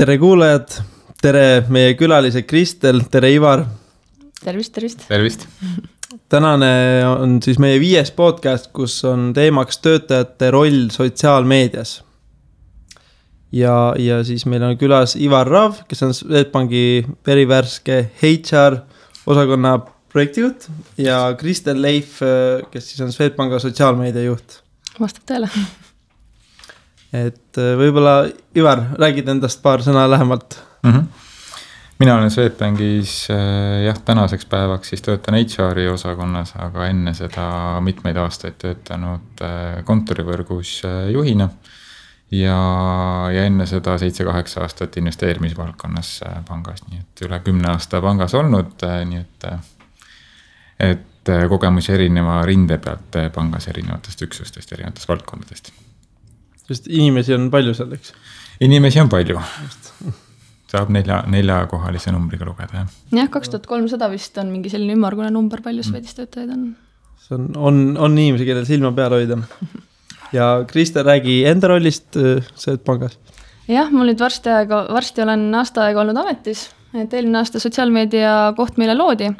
Tere kuulajad, tere meie külalised Kristel, tere Ivar. Tervist. Tänane on siis meie 5. podcast, kus on teemaks töötajate roll sotsiaalmeedias. Ja siis meil on külas Ivar Rav, kes on Swedbanki verivärske HR osakonna projektijuht ja Kristel Leif, kes siis on Swedbanka sotsiaalmeedia juht. Vastab tõele. Et võibolla Ivar, räägid endast paar sõna lähemalt. Mina olen Swedbankis tänaseks päevaks siis töötan HR-i osakonnas, aga enne seda mitmeid aastaid töötanud kontorivõrgus juhina ja enne seda 7-8 aastat investeerimisvaldkonnas pangas, nii et üle 10 aasta pangas olnud, nii et kogemusi erineva rinde pealt pangas erinevatest üksustest, erinevatest valdkondadest. Sest inimesi on palju seal, eks? Inimesi on palju. Saab 4 kohalise numbriga lugeda. Jah, 2300 vist on mingi selline ümmargune number, palju Swedis töötajaid on. See on inimesi, kellel silma peal hoida. Ja Kristel, räägi enda rollist Swedbankis. Jah, mul nüüd varsti olen aasta aega olnud ametis, et eelmine aasta sotsiaalmeedia koht meile loodi.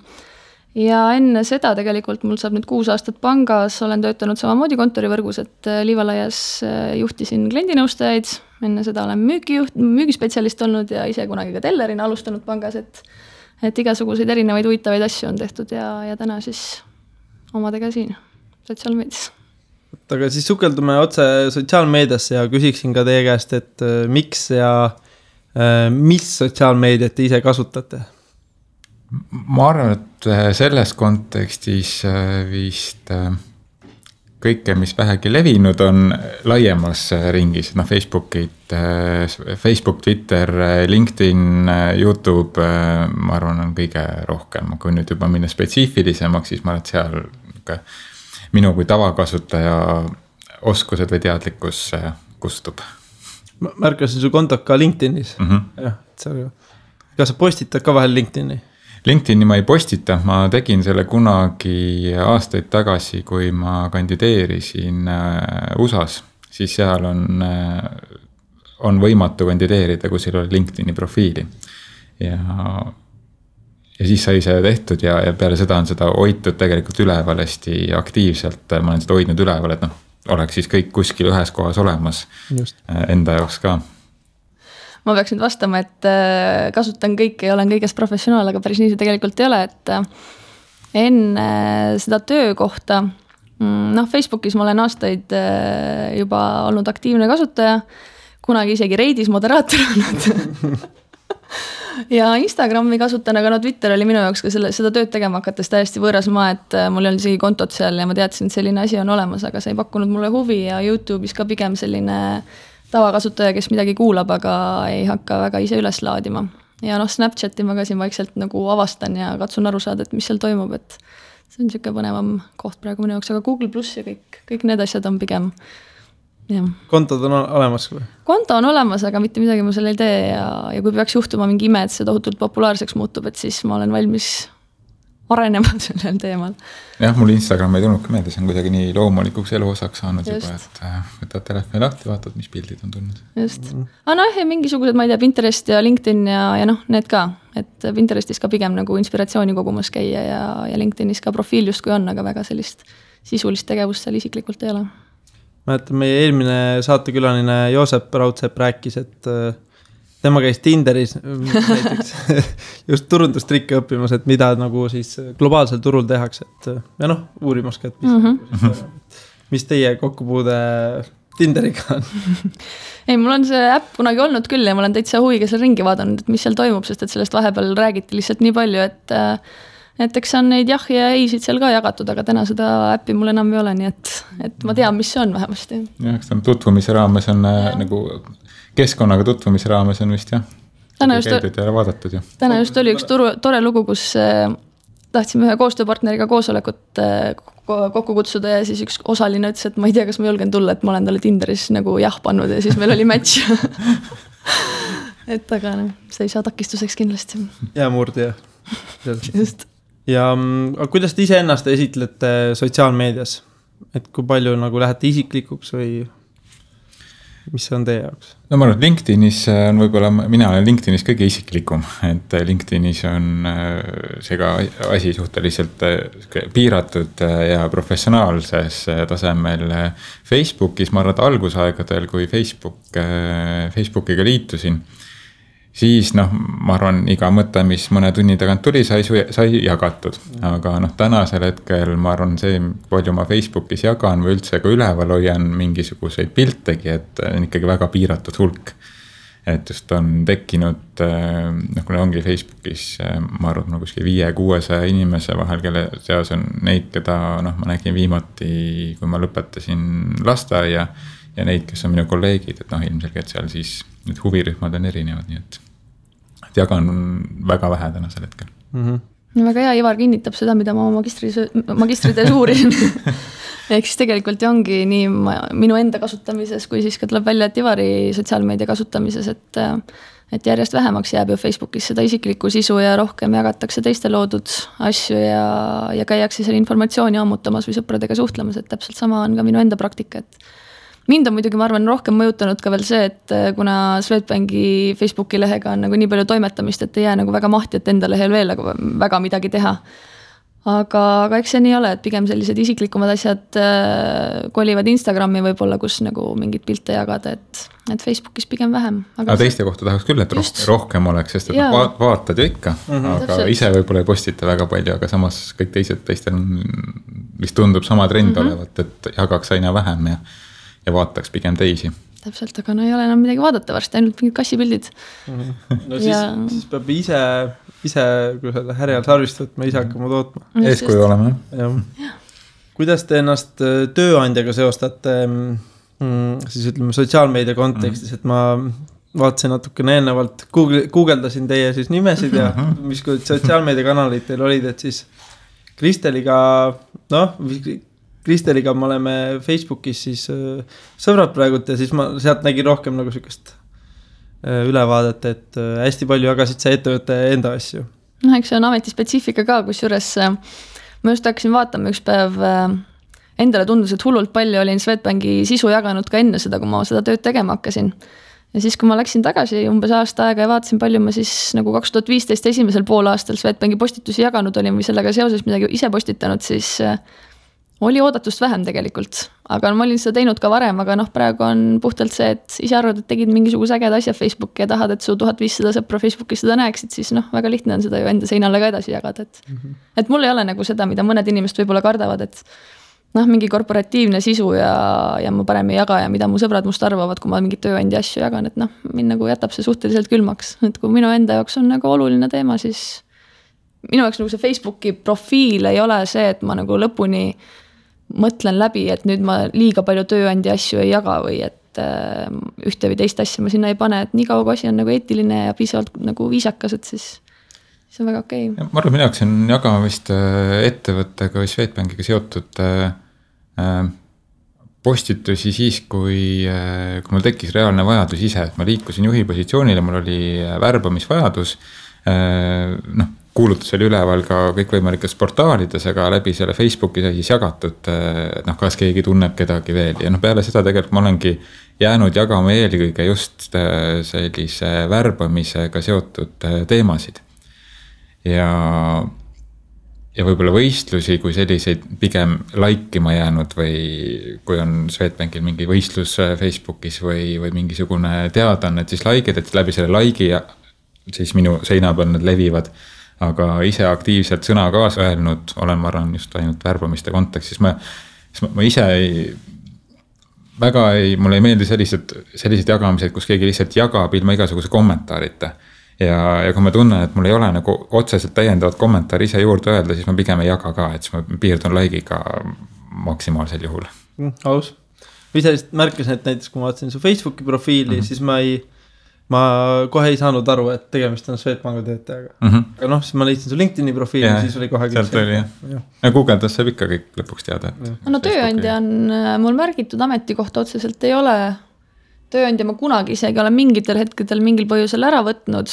Ja enne seda tegelikult mul saab nüüd 6 aastat pangas, olen töötanud samamoodi kontorivõrgus, et Liivalaias juhtisin kliendinõustajaid, enne seda olen müügispetsialist olnud ja ise kunagi ka tellerina alustanud pangas, et igasuguseid erinevaid huvitavaid asju on tehtud ja täna siis omadega siin sotsiaalmeedias. Aga siis sukeldume otse sotsiaalmeediasse ja küsiksin ka teie käest, et miks ja mis sotsiaalmeediat te ise kasutate? Ma arvan, et selles kontekstis vist kõike, mis vähegi levinud on laiemas ringis, Facebook, Twitter, LinkedIn, YouTube, ma arvan, on kõige rohkem. Kui nüüd juba minna spetsiifilisemaks, siis ma arvan, et seal minu kui tavakasutaja oskused või teadlikkus kustub. Ma märkasin su kontot ka LinkedInis. Jah, kas sa postitad ka vahel LinkedIni? LinkedIni ma ei postita, ma tegin selle kunagi aastaid tagasi, kui ma kandideerisin USAs, siis seal on võimatu kandideerida, kui seal oli LinkedIni profiili. Ja siis sai see tehtud ja peale seda on seda hoitud tegelikult üleval hästi aktiivselt, ma olen seda hoidnud üleval, et oleks siis kõik kuskil ühes kohas olemas. Just. Enda jaoks ka. Ma peaks nüüd vastama, et kasutan kõike ja olen kõigest professionaal, aga päris nii see tegelikult ei ole, et enne seda töökohta, Facebookis ma olen aastaid juba olnud aktiivne kasutaja, kunagi isegi Reidis moderaator olnud ja Instagrami kasutan, aga Twitter oli minu jaoks ka seda tööd tegema hakates täiesti võõras maa, et mul ei olnud isegi kontot seal ja ma teadsin, et selline asi on olemas, aga see ei pakkunud mulle huvi ja YouTube'is ka pigem selline tavakasutaja, kes midagi kuulab, aga ei hakka väga ise üles laadima. Ja Snapchati ma ka siin vaikselt nagu avastan ja katsun aru saada, et mis seal toimub, et see on siuke põnevam koht praegu minu jaoks, aga Google Plus ja kõik need asjad on pigem. Ja. Kontod on olemas või? Konto on olemas, aga mitte midagi ma selle ei tee ja kui peaks juhtuma mingi ime, et see tohutult populaarseks muutub, et siis ma olen valmis arenema sellel teemal. Jah, mul Instagram ei tulnud ka meelde, see on kuidagi nii loomulikuks eluosaks saanud juba, et võtad telefoni lahti, vaatad, mis pildid on tulnud. Just. Ja mingisugused, ma ei tea, Pinterest ja LinkedIn ja need ka, et Pinterestis ka pigem nagu inspiratsiooni kogumas käia ja LinkedInis ka profiil just kui on, aga väga sellist sisulist tegevust seal isiklikult ei ole. Mäletan, meie eelmine saatekülaline Joosep Raudsepp rääkis, et tema käis Tinderis näiteks just turundustrikke õppimas, et mida nagu siis globaalsel turul tehakse, et uurimas ka, et mis teie kokkupuude Tinderiga on? Ei, mul on see äpp kunagi olnud küll ja ma olen täitsa huviga seal ringi vaadanud, et mis seal toimub, sest et sellest vahepeal räägiti lihtsalt nii palju, et eks on neid jah ja eisid seal ka jagatud, aga täna seda äppi mul enam ei ole, nii et ma tean, mis see on vähemasti. Jah, eks tutvumise raames on nagu keskkonnaga tutvumise raames on vist jah. Täna just oli üks tore lugu, kus tahtsime ühe koostööpartneriga koosolekut kokku kutsuda ja siis üks osaline ütles, et ma ei tea, kas ma julgen tulla, et ma olen talle Tinderis nagu jah pannud ja siis meil oli match. Et aga see ei saa takistuseks kindlasti. Ja murdi. Just. Ja kuidas te ise ennast esitlete sotsiaalmeedias? Et kui palju nagu lähete isiklikuks või mis see on teie jaoks? No ma arvan, et LinkedInis on võib-olla, mina olen LinkedInis kõige isiklikum, et LinkedInis on see ka asi suhteliselt piiratud ja professionaalses tasemel. Facebookis ma arvan, et algusaegadel, kui Facebookiga liitusin, siis ma arvan, iga mõte, mis mõne tunni tagant tuli, sai jagatud. Aga tänasel hetkel ma arvan, see, palju ma Facebookis jagan või üldse ka üleval hoian mingisuguseid piltegi, et on ikkagi väga piiratud hulk. Et just on tekkinud, kui ongi Facebookis, ma arvan, kuskil 500-600 inimese vahel, kelle seas on neid, keda ma nägin viimati, kui ma lõpetasin lasteaia ja neid, kes on minu kolleegid, et ilmselgelt seal siis need huvirühmad on erinevad, nii et jagan väga vähe tänasel hetkel. Väga hea, Ivar kinnitab seda, mida ma magistritöös uurisin. Ehk siis tegelikult ongi nii minu enda kasutamises, kui siis ka tuleb välja, et Ivari sotsiaalmeedia kasutamises, et järjest vähemaks jääb ju Facebookis seda isiklikku sisu ja rohkem jagatakse teiste loodud asju ja käiakse seal informatsiooni ammutamas või sõpradega suhtlemas, et täpselt sama on ka minu enda praktika, et mind on muidugi, ma arvan, rohkem mõjutanud ka veel see, et kuna Swedbanki Facebooki lehega on nagu nii palju toimetamist, et ei jää nagu väga mahti, et enda lehel veel väga midagi teha. Aga eks see nii ole, et pigem sellised isiklikumad asjad kolivad Instagrami võib-olla, kus nagu mingid pilte jagada, et Facebookis pigem vähem. Aga teiste kohta tahaks küll, et rohkem oleks, sest et vaatad ju ikka, aga ise võib-olla ei postita väga palju, aga samas kõik teistel mis tundub sama trend olevat, et jagaks aina vähem ja vaataks pigem teisi. Täpselt, aga ei ole enam midagi vaadata varsti, ainult mingid kassipildid. No siis peab ise kui selle härjal sarvist võtma, ise hakkama tootma. Eeskuju olema. Kuidas te ennast tööandjaga seostate siis ütleme sotsiaalmeedia kontekstis, et ma vaatasin natukene eelnevalt, guugeldasin teie siis nimesid ja mis sotsiaalmeedia kanalid teil olid, et siis Kristeliga me oleme Facebookis siis sõbrad praegult ja siis ma sealt nägin rohkem nagu sükest ülevaadet, et hästi palju jagasid see ettevõtte enda asju. Eks see on ametispetsiifika ka, kus juures ma just hakkasin vaatama üks päev, endale tundus, et hullult palju olin Swedbanki sisu jaganud ka enne seda, kui ma seda tööd tegema hakkasin. Ja siis, kui ma läksin tagasi umbes aasta aega ja vaatasin, palju ma siis nagu 2015 esimesel poolaastal Swedbanki postitusi jaganud olin või sellega seoses midagi ise postitanud, siis oli oodatust vähem tegelikult, aga ma olin seda teinud ka varem, aga praegu on puhtalt see, et ise arvad, et tegid mingisuguse ägeda asja Facebooki ja tahad, et su 1500 sõpra Facebookis seda näeksid, siis väga lihtne on seda ju enda seinale ka edasi jagada, et mul ei ole nagu seda, mida mõned inimesed võib-olla kardavad, et mingi korporatiivne sisu ja ma parem ei jaga ja mida mu sõbrad must arvavad, kui ma mingi tööandja asju jagan, et mind nagu jätab see suhteliselt külmaks, et kui minu enda jaoks on nagu oluline teema, siis minu jaoks nagu see Facebooki profiil ei ole see, et ma nagu lõpuni mõtlen läbi, et nüüd ma liiga palju tööandja asju ei jaga või et ühte või teist asja ma sinna ei pane, et nii kaua kui asi on nagu eetiline ja piisavalt nagu viisakas, et siis on väga okei. Ma arvan, minu jaoks on jagamist ettevõttega või Swedbankiga seotud postitusi siis, kui mul tekkis reaalne vajadus ise, et ma liikusin juhi positsioonile, mul oli värbamisvajadus, kuulutus oli üleval ka kõikvõimalikes portaalides, aga läbi selle Facebooki sai siis jagatud, kas keegi tunneb kedagi veel. Ja peale seda tegelikult ma olengi jäänud jagama eelkõige just sellise värbamisega seotud teemasid. Ja võib-olla võistlusi, kui selliseid pigem laikima jäänud või kui on Swedbankil mingi võistlus Facebookis või mingisugune teadan, et siis laikid, et läbi selle laigi ja siis minu seina peal need levivad. Aga ise aktiivselt sõna kaasa öelnud olen, ma arvan, just ainult värbamiste kontekstis. Ma ise mulle ei meeldi sellised jagamised, kus keegi lihtsalt jagab ilma igasuguse kommentaarita. Ja kui ma tunnen, et mul ei ole nagu otseselt täiendavat kommentaari ise juurde öelda, siis ma pigem ei jaga ka, et siis ma piirdun like'iga maksimaalsel juhul. Aus. Või ise märkasin, et näiteks kui ma vaatasin su Facebooki profiili, siis ma kohe ei saanud aru, et tegemist on Swedbanki töötajaga. Aga siis ma leidsin su LinkedIni profiili ja siis oli kohe sealt oli, ja Google'das saab ikka kõik lõpuks teada. Tööandja on mul märgitud ametikohta otseselt ei ole. Tööandja ma kunagi isegi olen mingitel hetkedel mingil põhjusel ära võtnud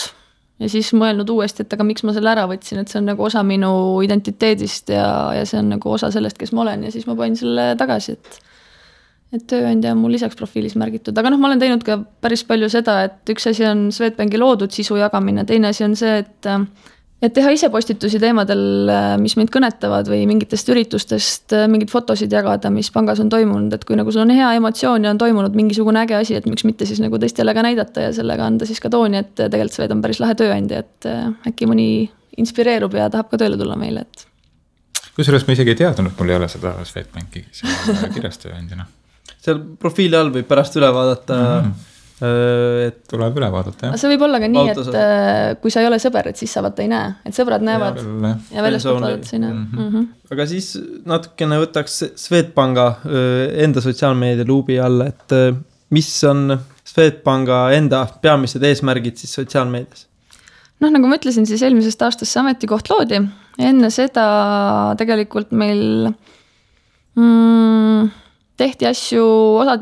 ja siis mõelnud uuesti, et aga miks ma selle ära võtsin, et see on nagu osa minu identiteedist ja see on nagu osa sellest, kes ma olen ja siis ma panin selle tagasi, et tööandja on mul lisaks profiilis märgitud, aga noh, ma olen teinud ka päris palju seda, et üks asi on Swedbanki loodud sisu jagamine, teine asi on see, et teha ise postitusi teemadel, mis mind kõnetavad või mingitest üritustest mingid fotosid jagada, mis pangas on toimunud, et kui nagu sul on hea emotsioon ja on toimunud mingisugune äge asi, et miks mitte siis nagu teistele ka näidata ja sellega anda siis ka tooni, et tegelikult Swed on päris lahe tööandja, et äkki mõni inspireerub ja tahab ka tööle tulla meile, et. Kusjuures ma isegi ei teadnud, et mul ei ole seda Swedbanki kirjas tööandjana. Seal profiili all võib pärast üle vaadata et tuleb üle vaadata, jah. See võib olla ka nii, et kui sa ei ole sõber, et siis sa vaata ei näe, et sõbrad näevad ja väljastpoolt vaadata sa ei näe. Aga siis natukene võtaks Swedbanka enda sotsiaalmeedia luubi alla, et mis on Swedbanka enda peamised eesmärgid siis sotsiaalmeedias? Noh, nagu ma ütlesin, siis eelmisest aastast see ametikoht loodi. Enne seda tegelikult meil tehti asju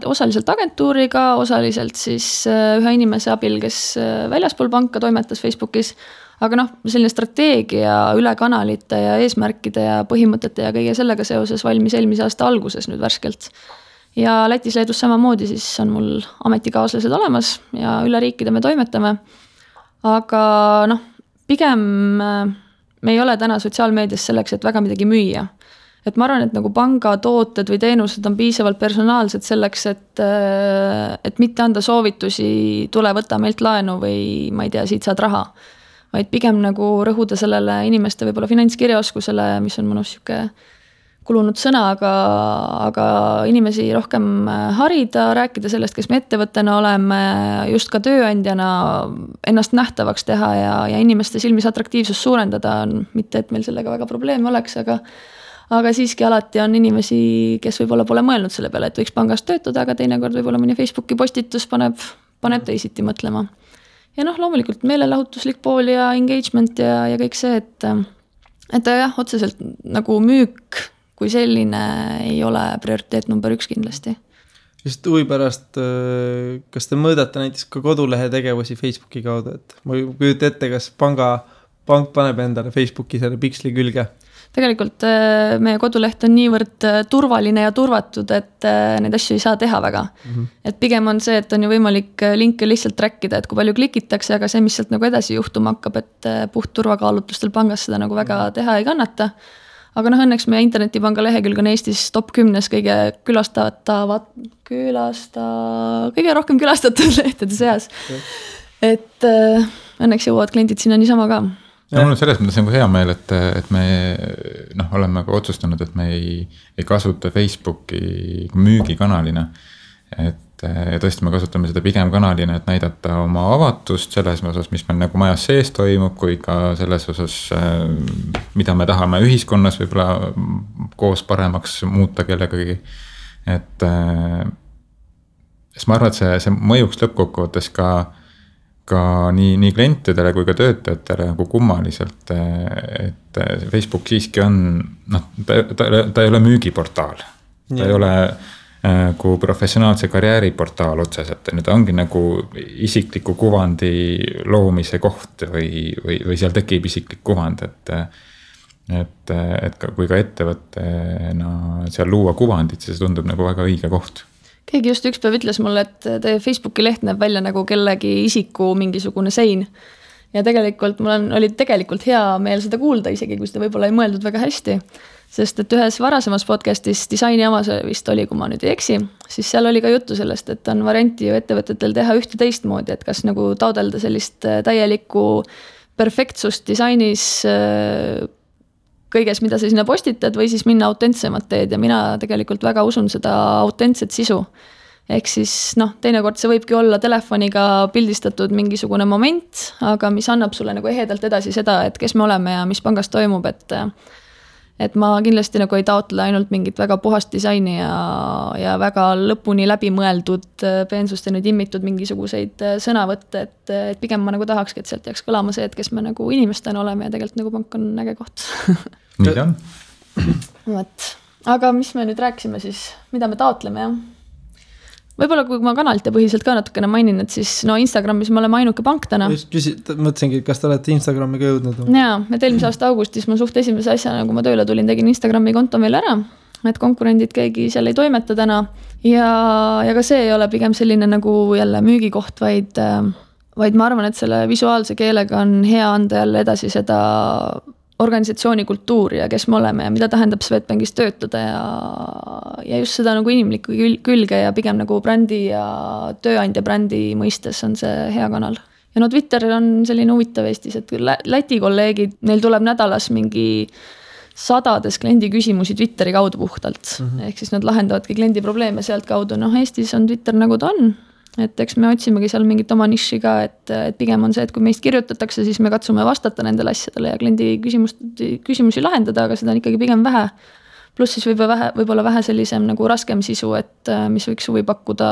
osaliselt agentuuriga, osaliselt siis ühe inimese abil, kes väljaspool panka toimetas Facebookis. Aga noh, selline strateegia üle kanalite ja eesmärkide ja põhimõtete ja kõige sellega seoses valmis eelmise aasta alguses nüüd värskelt. Ja Lätis, Leedus samamoodi siis on mul ametikaaslased olemas ja üle riikide me toimetame. Aga noh, pigem me ei ole täna sotsiaalmeedias selleks, et väga midagi müüa. Et ma arvan, et nagu panga tooted või teenused on piisavalt personaalsed selleks, et mitte anda soovitusi, tule võtta meilt laenu või ma ei tea, siit saad raha. Vaid pigem nagu rõhuda sellele inimeste võib-olla finantskirjaoskusele, mis on mõnus siuke kulunud sõna, aga inimesi rohkem harida, rääkida sellest, kes me ettevõttena oleme, just ka tööandjana ennast nähtavaks teha ja inimeste silmis atraktiivsus suurendada on, mitte et meil sellega väga probleemi oleks, aga siiski alati on inimesi, kes võib-olla pole mõelnud selle peale, et võiks pangas töötada, aga teinekord võib-olla mõni Facebooki postitus paneb teisiti mõtlema. Ja noh, loomulikult meelelahutuslik pool ja engagement ja kõik see, et jah, otseselt nagu müük kui selline ei ole prioriteet number 1 kindlasti. Just huvi pärast, kas te mõõdate näiteks ka kodulehe tegevusi Facebooki kaudu, et ma kujuta ette, kas pank paneb endale Facebooki selle piksli külge? Tegelikult meie koduleht on niivõrd turvaline ja turvatud, et neid asju ei saa teha väga. Et pigem on see, et on ju võimalik linke lihtsalt trackida, et kui palju klikitakse, aga see, mis sealt nagu edasi juhtuma hakkab, et puht turvakaalutlustel pangas seda nagu väga teha ei kannata. Aga noh, õnneks meie internetipanga lehekülg on Eestis top 10 kõige kõige rohkem külastatud lehtede seas. Et õnneks jõuavad kliendid sinna niisama ka. Ja mul on selles mõttes nagu hea meel, et me oleme ka otsustanud, et me ei kasuta Facebooki müügikanalina. Ja tõesti me kasutame seda pigem kanalina, et näidata oma avatust selles osas, mis meil nagu majas sees toimub, kui ka selles osas, mida me tahame ühiskonnas võib-olla koos paremaks muuta kellegagi. Et ma arvan, et see mõjuks lõppkokkuvõttes ka nii klientidele kui ka töötajatele nagu kummaliselt, et Facebook siiski on, ta ei ole müügiportaal, ta ei ole kui professionaalse karjääriportaal otseselt, ta ongi nagu isikliku kuvandi loomise koht või seal tekib isiklik kuvand, et kui ka ettevõttena seal luua kuvandit, siis tundub nagu väga õige koht. Keegi just üks päev ütles mulle, et teie Facebooki leht näeb välja nagu kellegi isiku mingisugune sein. Ja tegelikult mul oli tegelikult hea meel seda kuulda, isegi kui seda võib-olla ei mõeldud väga hästi. Sest et ühes varasemas podcastis disaini amas vist oli, kui ma nüüd ei eksi, siis seal oli ka juttu sellest, et on varianti ju ettevõtetel teha ühte teistmoodi, et kas nagu taodelda sellist täielikku perfektsust disainis kõiges, mida sa sinna postitad või siis minna autentsemat teed ja mina tegelikult väga usun seda autentset sisu. Ehk siis teinekord see võibki olla telefoniga pildistatud mingisugune moment, aga mis annab sulle nagu ehedalt edasi seda, et kes me oleme ja mis pangas toimub, et ma kindlasti nagu ei taotle ainult mingit väga puhast disaini ja väga lõpuni läbi mõeldud peensust ja nüüd immitud mingisuguseid sõnavõtte, et pigem ma nagu tahakski, et sealt jääks kõlama see, et kes me nagu inimestena oleme ja tegelikult nagu pank on äge koht. Nii ta on. Aga mis me nüüd rääksime siis, mida me taotleme, jah? Võib-olla kui ma kanalite põhiselt ka natukene mainin, et siis Instagramis me oleme ainuke pank täna. Mõtlesingi, kas te olete Instagrami ka jõudnud? Jaa, et eelmise aasta augustis ma suht esimese asjana, kui ma tööle tulin, tegin Instagrami konto meil ära. et konkurendid keegi seal ei toimeta täna ja ka see ei ole pigem selline nagu jälle müügikoht, vaid ma arvan, et selle visuaalse keelega on hea anda jälle edasi seda organisatsiooni kultuuri ja kes me oleme ja mida tähendab Swedbankis töötada ja just seda nagu inimlikku külge ja pigem nagu brändi ja tööandja brändi mõistes on see hea kanal. Ja no Twitter on selline huvitav Eestis, et Läti kolleegid, neil tuleb nädalas mingi 100 kliendi küsimusi Twitteri kaudu puhtalt. Ehk siis nad lahendavadki kliendi probleeme sealt kaudu. Eestis on Twitter nagu ta on. Et eks me otsimegi seal mingit oma niši ka, et pigem on see, et kui meist kirjutatakse, siis me katsume vastata nendele asjadele ja kliendi küsimusi lahendada, aga seda on ikkagi pigem vähe. Pluss siis võib-olla vähe sellisem nagu raskem sisu, et mis võiks huvi pakkuda,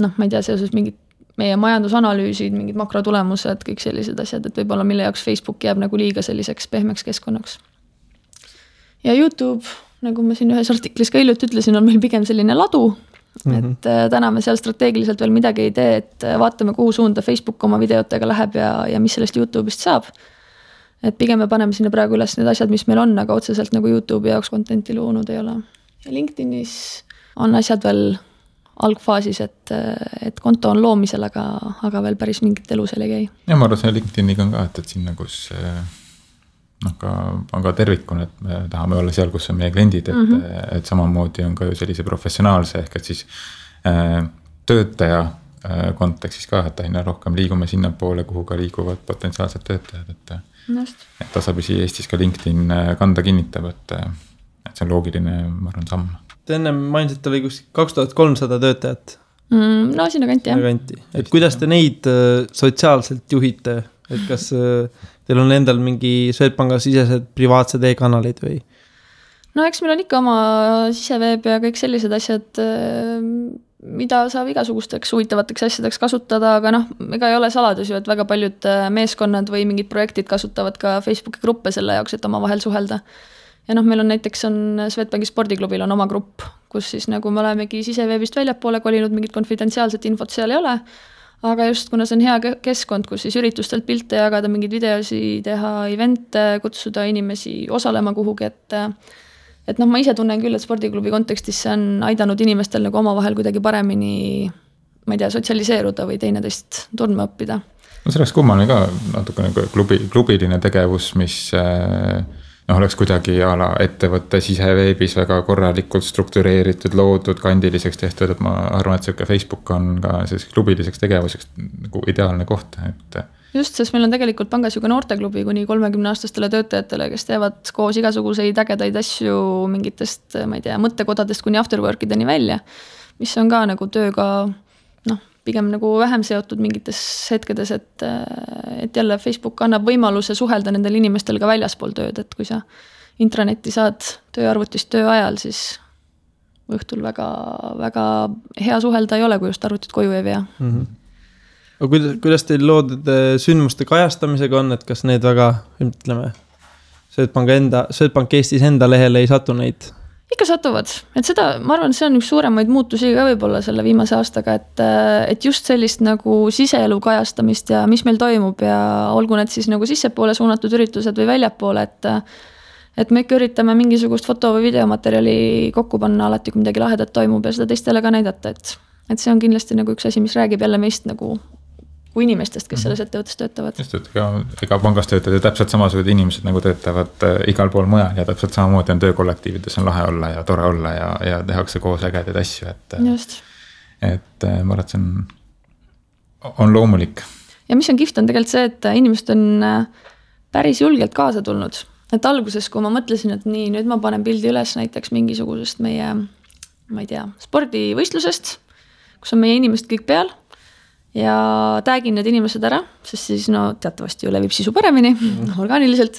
ma ei tea, seoses mingid meie majandusanalüüsid, mingid makrotulemused, kõik sellised asjad, et võib-olla mille jaoks Facebook jääb nagu liiga selliseks pehmeks keskkonnaks. Ja YouTube, nagu ma siin ühes artiklis ka hiljuti ütlesin, on meil pigem selline ladu, et täna me seal strateegiliselt veel midagi ei tee, et vaatame, kuhu suunda Facebook oma videotega läheb ja mis sellest YouTube'ist saab. Et pigem me paneme sinna praegu üles need asjad, mis meil on, aga otseselt nagu YouTube'i jaoks contenti loonud ei ole. Ja LinkedInis on asjad veel algfaasis, et konto on loomisel, aga veel päris mingit elu seal ei käi. Ja ma arvan, see LinkedIniga on ka, et sinna, kus on ka tervikuna, et me tahame olla seal, kus on meie kliendid, et samamoodi on ka ju sellise professionaalse ehk et siis töötaja kontekstis ka, et aina rohkem liigume sinna poole, kuhu ka liiguvad potentsiaalsed töötajad, et tasapisi Eestis ka LinkedIn kanda kinnitab, et see on loogiline, ma arvan, samm. Te enne mainisid, oli 2300 töötajat. No sinna kanti, jah. Et kuidas te neid sotsiaalselt juhite? Et kas teil on endal mingi Swedbanka sisesed privaatsed e-kanalid või? No eks meil on ikka oma siseveeb ja kõik sellised asjad, mida saab igasugusteks huvitavateks asjadeks kasutada, aga ega ei ole saladus ju, et väga paljud meeskonnad või mingid projektid kasutavad ka Facebooki gruppe selle jaoks, et oma vahel suhelda. Ja meil on näiteks Swedbanki spordiklubil on oma grupp, kus siis nagu me olemegi siseveebist väljapoole kolinud, mingit konfidentsiaalset infot seal ei ole, aga just kuna see on hea keskkond, kus siis üritustelt pilte jagada, mingid videosi teha, evente, kutsuda inimesi osalema kuhugi, et ma ise tunnen küll, et spordiklubi kontekstis see on aidanud inimestel nagu omavahel kuidagi paremini, ma ei tea, sotsialiseeruda või teineteist tundma õppida. No see oleks kummaline ka natuke nagu klubiline tegevus, mis oleks kuidagi ettevõtte siseveebis väga korralikult struktureeritud, loodud, kandiliseks tehtud, et ma arvan, et see Facebook on ka klubiliseks tegevuseks nagu ideaalne koht. Just, sest meil on tegelikult pangas ju ka noorteklubi kuni 30-aastastele töötajatele, kes teevad koos igasuguseid ägedaid asju mingitest, ma ei tea, mõttekodadest kuni afterworkideni välja, mis on ka nagu tööga pigem nagu vähem seotud mingites hetkedes, et jälle Facebook annab võimaluse suhelda nendel inimestel ka väljaspool tööd, et kui sa intranetti saad tööarvutist töö ajal, siis õhtul väga, väga hea suhelda ei ole, kui just arvutit koju ei vea. Aga kuidas teil loodud sündmuste kajastamisega on, et kas need väga, ütleme, Swedbank Eestis enda lehele ei satu neid? Ikka satuvad, et seda, ma arvan, see on üks suuremaid muutusi ka võib-olla selle viimase aastaga, et just sellist nagu siseelu kajastamist ja mis meil toimub ja olgu need siis nagu sissepoole suunatud üritused või väljapoole, et me ikka üritame mingisugust foto- või videomaterjali kokku panna alati, kui midagi lahedat toimub ja seda teistele ka näidata, et see on kindlasti nagu üks asi, mis räägib jälle meist nagu kui inimestest, kes selles ettevõttes töötavad. Just, et ega pangas töötavad ja täpselt samasugused inimesed nagu töötavad igal pool mujal ja täpselt samamoodi on töökollektiivides on lahe olla ja tore olla ja tehakse koos ägedaid asju, et ma arvan, et see on loomulik. Ja mis on kihvt on tegelikult see, et inimesed on päris julgelt kaasa tulnud, et alguses, kui ma mõtlesin, et nii, nüüd ma panen pildi üles näiteks mingisugusest meie, ma ei tea, spordivõistlusest, kus on meie inimesed kõik peal ja tagin need inimesed ära, sest siis teatavasti ju levib sisu paremini, orgaaniliselt,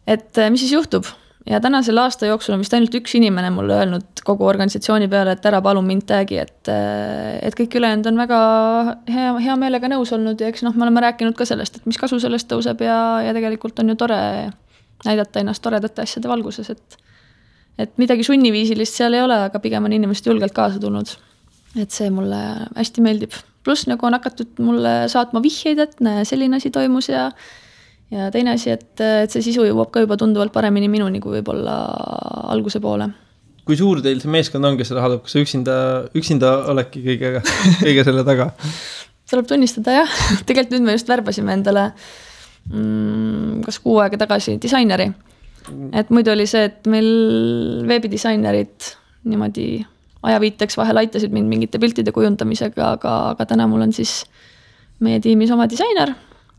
et mis siis juhtub. Ja tänasel aasta jooksul on vist ainult üks inimene mulle öelnud kogu organisatsiooni peale, et ära palun mind tagi, et kõik ülejäänud on väga hea meelega nõus olnud ja eks me oleme rääkinud ka sellest, et mis kasu sellest tõuseb ja tegelikult on ju tore näidata ennast toredate asjade valguses, et midagi sunniviisilist seal ei ole, aga pigem on inimesed julgelt kaasa tulnud. Et see mulle hästi meeldib. Plus nagu on hakatud mulle saatma vihjeid, et selline asi toimus ja teine asi, et see sisu jõuab ka juba tunduvalt paremini minuni kui võib-olla alguse poole. kui suur teil see meeskond on, kes seda haldab, kas üksinda oledki kõige selle taga? Tuleb tunnistada jah, tegelikult nüüd me just värbasime endale kas 6 aega tagasi disaineri. Et muidu oli see, et meil veebidisainerid niimoodi ajaviiteks vahel aitasid mind mingite piltide kujundamisega, aga täna mul on siis meie tiimis oma disainer,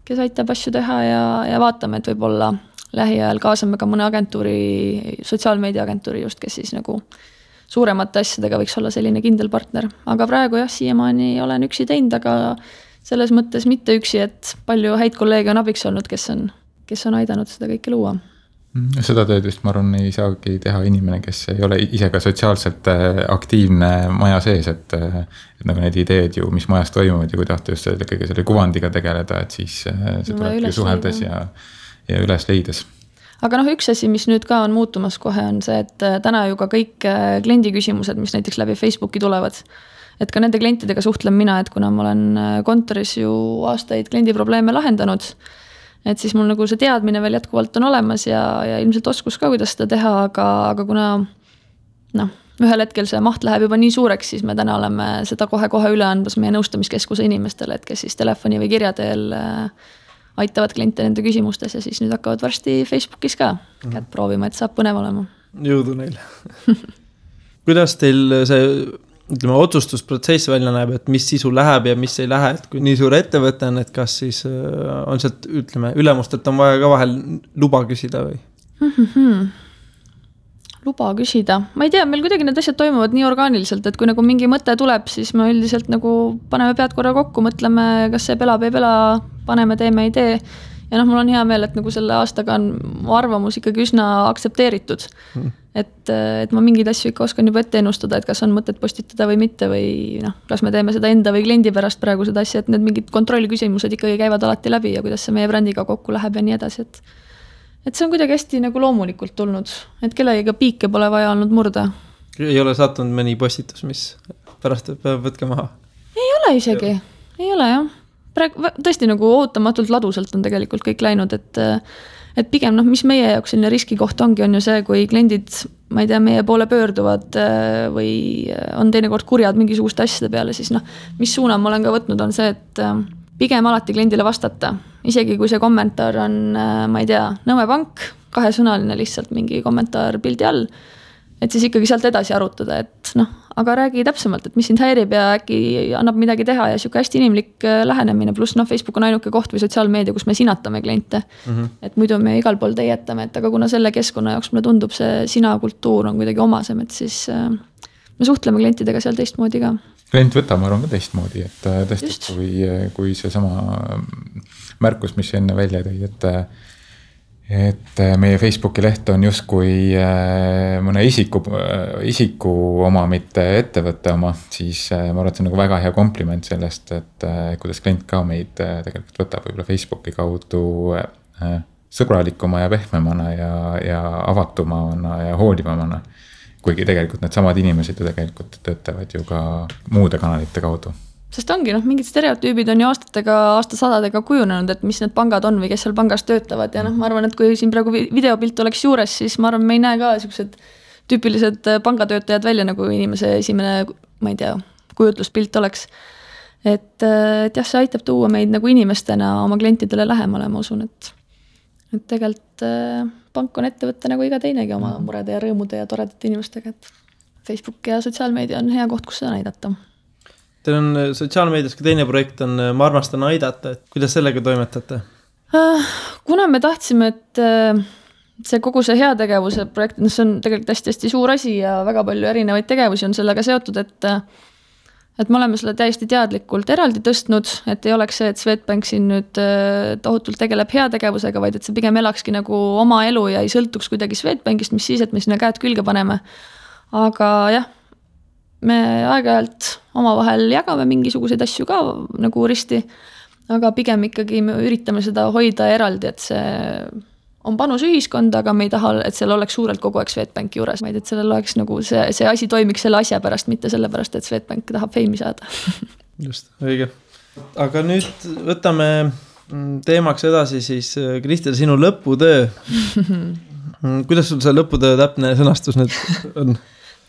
kes aitab asju teha ja vaatame, et võib-olla lähiajal kaasame ka mõne agentuuri, sotsiaalmeediaagentuuri just, kes siis nagu suuremate asjadega võiks olla selline kindel partner. Aga praegu jah, siiamaani olen üksi teinud, aga selles mõttes mitte üksi, et palju häid kolleege on abiks olnud, kes on aidanud seda kõike luua. Seda tööd vist, ma arvan, ei saagi teha inimene, kes ei ole ise ka sotsiaalselt aktiivne maja sees, et nagu need ideed ju, mis majas toimuvad ja kui tahta just kõige selle kuvandiga tegeleda, et siis see tuleb ju suheldes ja üles leides. Aga üks asi, mis nüüd ka on muutumas kohe, on see, et täna ju ka kõik kliendi küsimused, mis näiteks läbi Facebooki tulevad, et ka nende klientidega suhtlen mina, et kuna ma olen kontoris ju aastaid kliendi probleeme lahendanud, et siis mul nagu see teadmine veel jätkuvalt on olemas ja ilmselt oskus ka, kuidas seda teha, aga kuna ühel hetkel see maht läheb juba nii suureks, siis me täna oleme seda kohe üle andmas meie nõustamiskeskuse inimestele, et kes siis telefoni või kirja teel aitavad kliente nende küsimustes ja siis nüüd hakkavad varsti Facebookis ka kätt proovima, et saab põnev olema. Jõudu neile. Kuidas teil see otsustusprotsess välja näeb, et mis sisu läheb ja mis ei lähe, et kui nii suur ettevõte on, et kas siis on sealt, ülemustelt on vaja ka vahel luba küsida või? Luba küsida. Ma ei tea, meil kuidagi need asjad toimuvad nii orgaaniliselt, et kui nagu mingi mõte tuleb, siis me üldiselt nagu paneme pead korra kokku, mõtleme, kas see pelab, ei pela, paneme, teeme, ei tee. Ja mul on hea meel, et nagu selle aastaga on mu arvamus ikkagi üsna aktsepteeritud. Et ma mingeid asju ikka oskan juba ette ennustada, et kas on mõtet postitada või mitte või kas me teeme seda enda või kliendi pärast praegu seda asja, et need mingid kontrolliküsimused ikkagi käivad alati läbi ja kuidas see meie brändiga kokku läheb ja nii edasi, et see on kuidagi hästi nagu loomulikult tulnud, et kellegiga piike pole vaja olnud murda. Ei ole sattunud mõni postitus, mis pärast peab võtke maha? Ei ole isegi, ei ole jah. Tõesti nagu ootamatult ladusalt on tegelikult kõik läinud, et pigem mis meie jaoks selline riskikoht ongi, on ju see, kui kliendid, ma ei tea, meie poole pöörduvad või on teinekord kurjad mingisuguste asjade peale, siis mis suuna ma olen ka võtnud, on see, et pigem alati kliendile vastata. Isegi kui see kommentaar on, ma ei tea, Nõmme Pank, 2-sõnaline lihtsalt mingi kommentaar pildi all, et siis ikkagi sealt edasi arutada, et aga räägi täpsemalt, et mis sind häirib ja äkki annab midagi teha ja siuke hästi inimlik lähenemine, pluss Facebook on ainuke koht või sotsiaalmeedia, kus me sinatame kliente. Et muidu me igal pool teietame, et aga kuna selle keskkonna jaoks mulle tundub see sina kultuur on kuidagi omasem, et siis me suhtleme klientidega seal teistmoodi ka. Klient võtab, ma arvan, ka teistmoodi, et tõesti, kui see sama märkus, mis enne välja tõi, et meie Facebooki leht on justkui mõne isiku oma, mitte ettevõtte oma, siis ma arvan, et see on nagu väga hea kompliment sellest, et kuidas klient ka meid tegelikult võtab võib-olla Facebooki kaudu sõbralikuma ja pehmemana ja avatumana ja hoolivamana. Kuigi tegelikult need samad inimesed ju tegelikult töötavad ju ka muude kanalite kaudu. Sest ongi, mingid stereotüübid on ju aastasadadega kujunenud, et mis need pangad on või kes seal pangas töötavad. Ja ma arvan, et kui siin praegu videopilt oleks juures, siis ma arvan, me ei näe ka sellised tüüpilised pangatöötajad välja, nagu inimese esimene, ma ei tea, kujutluspilt oleks. Et jah, see aitab tuua meid nagu inimestena oma klientidele lähemale, ma usun, et tegelikult pank on ettevõtte nagu iga teinegi oma murede ja rõõmude ja toredate inimestega, et Facebook ja sotsiaalmeedia on hea koht, kus seda näidata. Teil on sotsiaalmeedias ka teine projekt on Ma armastan aidata, et kuidas sellega toimetate? Kuna me tahtsime, et see kogu see heategevuse projekt, see on tegelikult hästi suur asi ja väga palju erinevaid tegevusi on sellega seotud, et me oleme selle täiesti teadlikult eraldi tõstnud, et ei oleks see, et Swedbank siin nüüd tohutult tegeleb heategevusega, vaid et see pigem elakski nagu oma elu ja ei sõltuks kuidagi Swedbankist, mis siis, et me sinna käed külge paneme. Aga jah, me aeg-ajalt omavahel jagame mingisuguseid asju ka nagu risti, aga pigem ikkagi me üritame seda hoida eraldi, et see on panus ühiskonda, aga me ei taha, et seal oleks suurelt kogu aeg Swedbanki juures, vaid et sellel oleks nagu see asi toimiks selle asja pärast, mitte selle pärast, et Swedbank tahab feimi saada. Just, õige. Aga nüüd võtame teemaks edasi siis, Kristel, sinu lõputöö. Kuidas sul see lõputöö täpne sõnastus nüüd on?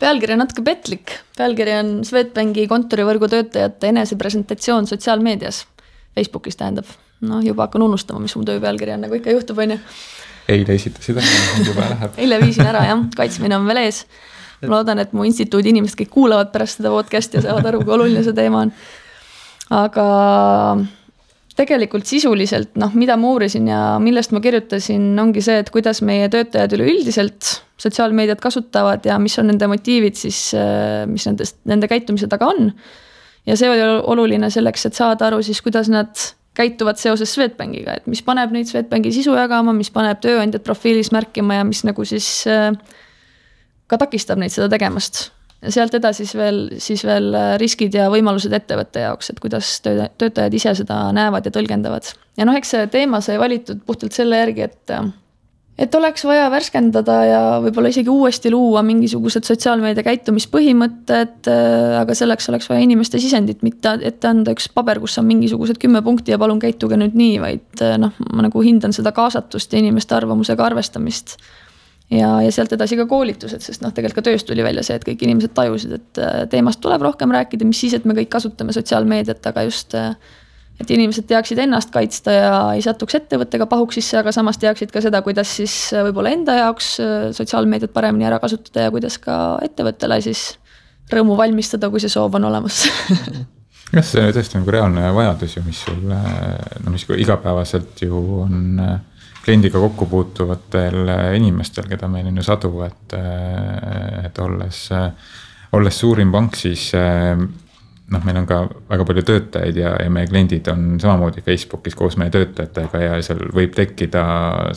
pealkiri on natuke petlik. Pealkiri on Swedbanki kontorivõrgu töötajate enesepresentatsioon sotsiaalmeedias. Facebookis tähendab. No juba hakkan unustama, mis mu töö pealkiri on, nagu ikka juhtub, on ju. Eile esitasid, juba läheb. Eile viisin ära, jah. Kaitsmine on veel ees. Ma loodan, et mu instituudi inimesed kõik kuulavad pärast seda podcasti ja saavad aru, kui oluline see teema on. Aga tegelikult sisuliselt, mida ma uurisin ja millest ma kirjutasin, ongi see, et kuidas meie töötajad üleüldiselt sotsiaalmeediat kasutavad ja mis on nende motiivid siis, mis nende käitumise taga on. Ja see oli oluline selleks, et saada aru siis, kuidas nad käituvad seoses Swedbankiga, et mis paneb neid Swedbanki sisu jagama, mis paneb tööandjad profiilis märkima ja mis nagu siis ka takistab neid seda tegemast. Ja sealt edasi siis veel riskid ja võimalused ettevõtte jaoks, et kuidas töötajad ise seda näevad ja tõlgendavad. Ja eks see teema sai valitud puhtalt selle järgi, et oleks vaja värskendada ja võib-olla isegi uuesti luua mingisugused sotsiaalmeedia käitumispõhimõtted, aga selleks oleks vaja inimeste sisendit, mitte ette anda üks paber, kus on mingisugused 10 punkti ja palun käituge nüüd nii, vaid ma nagu hindan seda kaasatust ja inimeste arvamusega arvestamist. Ja sealt edasi ka koolitused, sest tegelikult ka tööst tuli välja see, et kõik inimesed tajusid, et teemast tuleb rohkem rääkida, mis siis, et me kõik kasutame sotsiaalmeediat, aga just, et inimesed teaksid ennast kaitsta ja ei satuks ettevõttega pahuks sisse, aga samas teaksid ka seda, kuidas siis võib-olla enda jaoks sotsiaalmeediat paremini ära kasutada ja kuidas ka ettevõttele siis rõõmu valmistada, kui see soov on olemas. Kas see tõesti nagu reaalne vajadus ju, mis sul mis igapäevaselt ju on kliendiga kokku puutuvatel inimestel, keda meil on ju sadu, et olles suurim pank, siis meil on ka väga palju töötajaid ja meie kliendid on samamoodi Facebookis koos meie töötajatega ja seal võib tekkida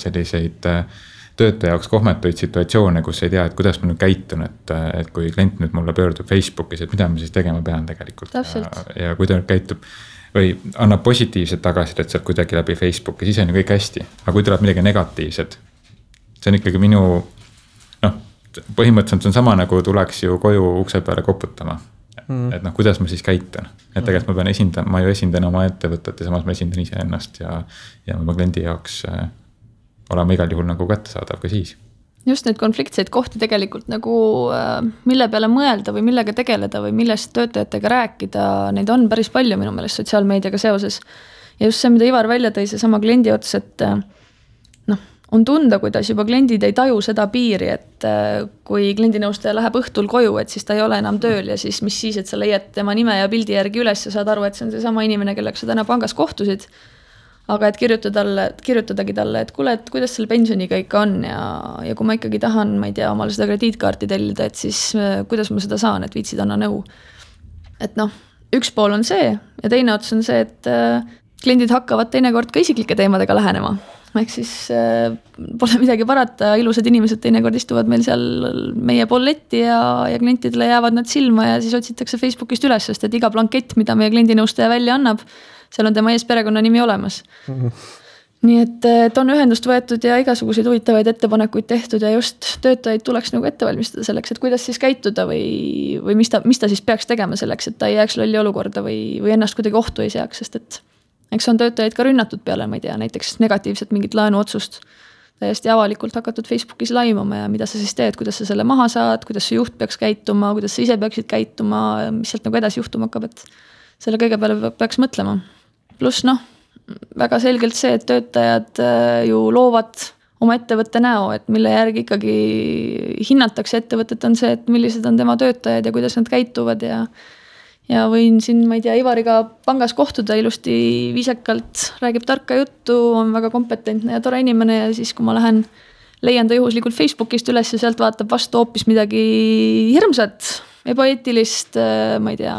selliseid töötaja jaoks kohmetuid situatsioone, kus ei tea, et kuidas ma nüüd käitun, et kui klient nüüd mulle pöördub Facebookis, et mida ma siis tegema pean tegelikult. Ja kui ta nüüd käitub või annab positiivset tagasisidet sealt kuidagi läbi Facebooki, siis on ju kõik hästi. Aga kui tuleb midagi negatiivset, see on ikkagi minu, põhimõtteliselt on sama nagu tuleks ju koju ukse peale koputama. Et kuidas ma siis käitun. Et tegelikult ma pean ma ju esindan oma ettevõtet ja samas ma esindan ise ennast ja oma kliendi jaoks olema igal juhul nagu kättesaadav ka siis. Just neid konfliktseid kohti tegelikult nagu mille peale mõelda või millega tegeleda või millest töötajatega rääkida, neid on päris palju minu meelest sotsiaalmeediaga seoses. Ja just see, mida Ivar välja tõi, see sama kliendi ots, et on tunda, kuidas juba kliendid ei taju seda piiri, et kui kliendinõustaja läheb õhtul koju, et siis ta ei ole enam tööl ja siis mis siis, et sa leiad tema nime ja pildi järgi üles ja saad aru, et see on see sama inimene, kellega sa täna pangas kohtusid. Aga et kirjutadagi talle, et kuule, et kuidas selle pensioniga ikka on ja kui ma ikkagi tahan, ma ei tea, omale seda krediitkaarti tellida, et siis kuidas ma seda saan, et viitsid anna nõu. Et üks pool on see ja teine ots on see, et kliendid hakkavad teinekord ka isiklike teemadega lähenema. Ehk siis pole midagi parata, ilusad inimesed teinekord istuvad meil seal meie pool letti ja klientidele jäävad nad silma ja siis otsitakse Facebookist üles, sest et iga blankett, mida meie kliendinõustaja välja annab, seal on tema ees perekonna nimi olemas. Nii et on ühendust võetud ja igasuguseid huvitavaid ettepanekuid tehtud ja just töötajaid tuleks nagu ette valmistada selleks, et kuidas siis käituda või mis ta siis peaks tegema selleks, et ta ei jääks lolli olukorda või ennast kuidagi ohtu ei seaks, sest et eks on töötajaid ka rünnatud peale, ma ei tea, näiteks negatiivset mingit laenuotsust täiesti avalikult hakatud Facebookis laimama ja mida sa siis teed, kuidas sa selle maha saad, kuidas see juht peaks käituma, kuidas sa ise peaksid käituma, mis sealt nagu edasi juhtuma hakkab, et selle kõige peale peaks mõtlema. Plus väga selgelt see, et töötajad ju loovad oma ettevõtte näo, et mille järgi ikkagi hinnatakse ettevõtet on see, et millised on tema töötajad ja kuidas nad käituvad ja võin siin, ma ei tea, Ivariga pangas kohtuda ilusti viisekalt, räägib tarka juttu, on väga kompetentne ja tore inimene ja siis, kui ma leian ta juhuslikult Facebookist üles ja sealt vaatab vastu hoopis midagi hirmsat, ebaeetilist, ma ei tea,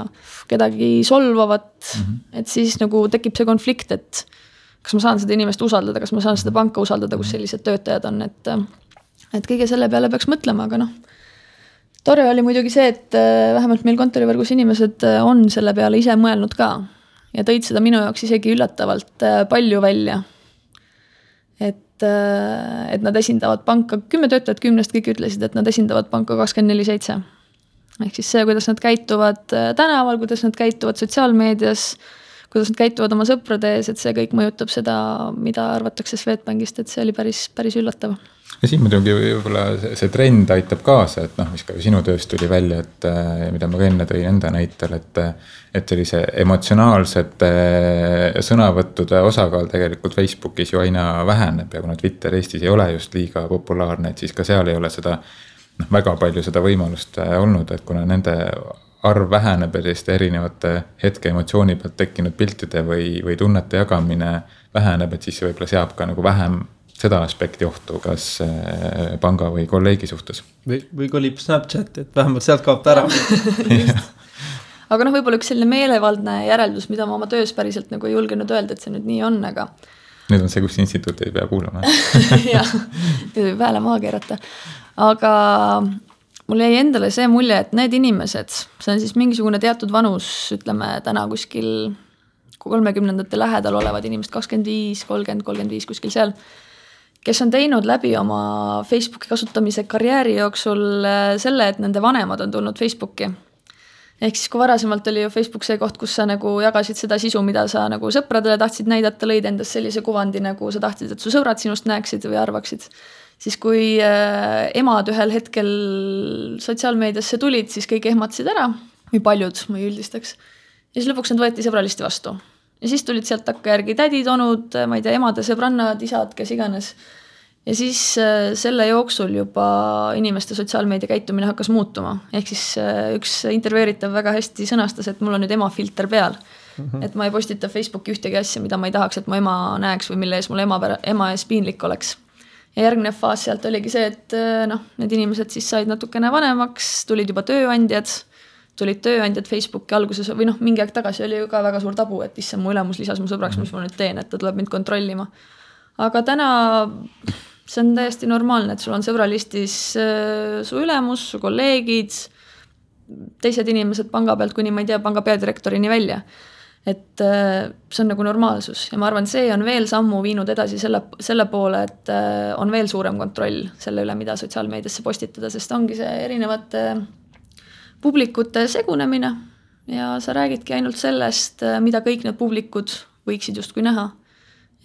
kedagi solvavat, et siis nagu tekib see konflikt, et kas ma saan seda inimest usaldada, kas ma saan seda panka usaldada, kus sellised töötajad on, et kõige selle peale peaks mõtlema, aga tore oli muidugi see, et vähemalt meil kontorivõrgus inimesed on selle peale ise mõelnud ka ja tõid seda minu jaoks isegi üllatavalt palju välja. Et nad esindavad panka, 10 töötajat 10 kõik ütlesid, et nad esindavad panka 24/7. Ehk siis see, kuidas nad käituvad tänaval, kuidas nad käituvad sotsiaalmeedias, kuidas nad käituvad oma sõprade ees, et see kõik mõjutab seda, mida arvatakse Swedbankist, et see oli päris üllatav. Ja siin muidugi võib-olla see trend aitab kaasa, et mis ka sinu tööst tuli välja, et mida ma ka enne tõin enda näitel, et sellise emotsionaalsete sõnavõttude osakaal tegelikult Facebookis ju aina väheneb ja kuna Twitter Eestis ei ole just liiga populaarne, et siis ka seal ei ole seda väga palju seda võimalust olnud, et kuna nende arv väheneb ja selliste erinevate hetke emotsiooni pealt tekkinud piltide või tunnete jagamine väheneb, et siis see võib-olla seab ka nagu vähem seda aspekti ohtu, kas panga või kolleegi suhtes. Või kolib Snapchat, et vähemalt sealt kaob ära. Aga võib-olla üks selline meelevaldne järeldus, mida ma oma töös päriselt nagu ei julgenud öelda, et see nüüd nii on, aga... Nüüd on see, kus instituut ei pea kuulama. Jah, nüüd võib hääle maha keerata. Aga mul jäi endale see mulje, et need inimesed, see on siis mingisugune teatud vanus, ütleme täna kuskil 30ndate lähedal olevad inimesed, 25, 30, 35 kuskil seal, kes on teinud läbi oma Facebooki kasutamise karjääri jooksul selle, et nende vanemad on tulnud Facebooki. Ehk siis kui varasemalt oli ju Facebook see koht, kus sa nagu jagasid seda sisu, mida sa nagu sõpradele tahtsid näidata, lõid endast sellise kuvandi, nagu sa tahtsid, et su sõbrad sinust näeksid või arvaksid. Siis kui emad ühel hetkel sotsiaalmeediasse tulid, siis kõik ehmatasid ära, või paljud, ma ei üldistaks. Ja siis lõpuks nad võeti sõbralisti vastu. Ja siis tulid sealt takka järgi tädid, onud, ma ei tea, emade, sõbrannad, isad, kes iganes. Ja siis selle jooksul juba inimeste sotsiaalmeedia käitumine hakkas muutuma. Ehk siis üks intervjueeritav väga hästi sõnastas, et mul on nüüd ema filter peal. Et ma ei postita Facebooki ühtegi asja, mida ma ei tahaks, et mu ema näeks või mille ees mul ema ees piinlik oleks. Ja järgnev faas sealt oligi see, et need inimesed siis said natukene vanemaks, tulid juba tööandjad Facebooki alguses või mingi aeg tagasi oli ju ka väga suur tabu, et issand mu ülemus lisas mu sõbraks, mis ma nüüd teen, et ta tuleb mind kontrollima. Aga täna see on täiesti normaalne, et sul on sõbralistis su ülemus, su kolleegid, teised inimesed panga pealt kuni ma ei tea, panga peadirektorini välja. Et see on nagu normaalsus ja ma arvan, see on veel sammu viinud edasi selle poole, et on veel suurem kontroll selle üle, mida sotsiaalmeediasse postitada, sest ongi see erinevate publikute segunemine ja sa räägidki ainult sellest, mida kõik need publikud võiksid justkui näha,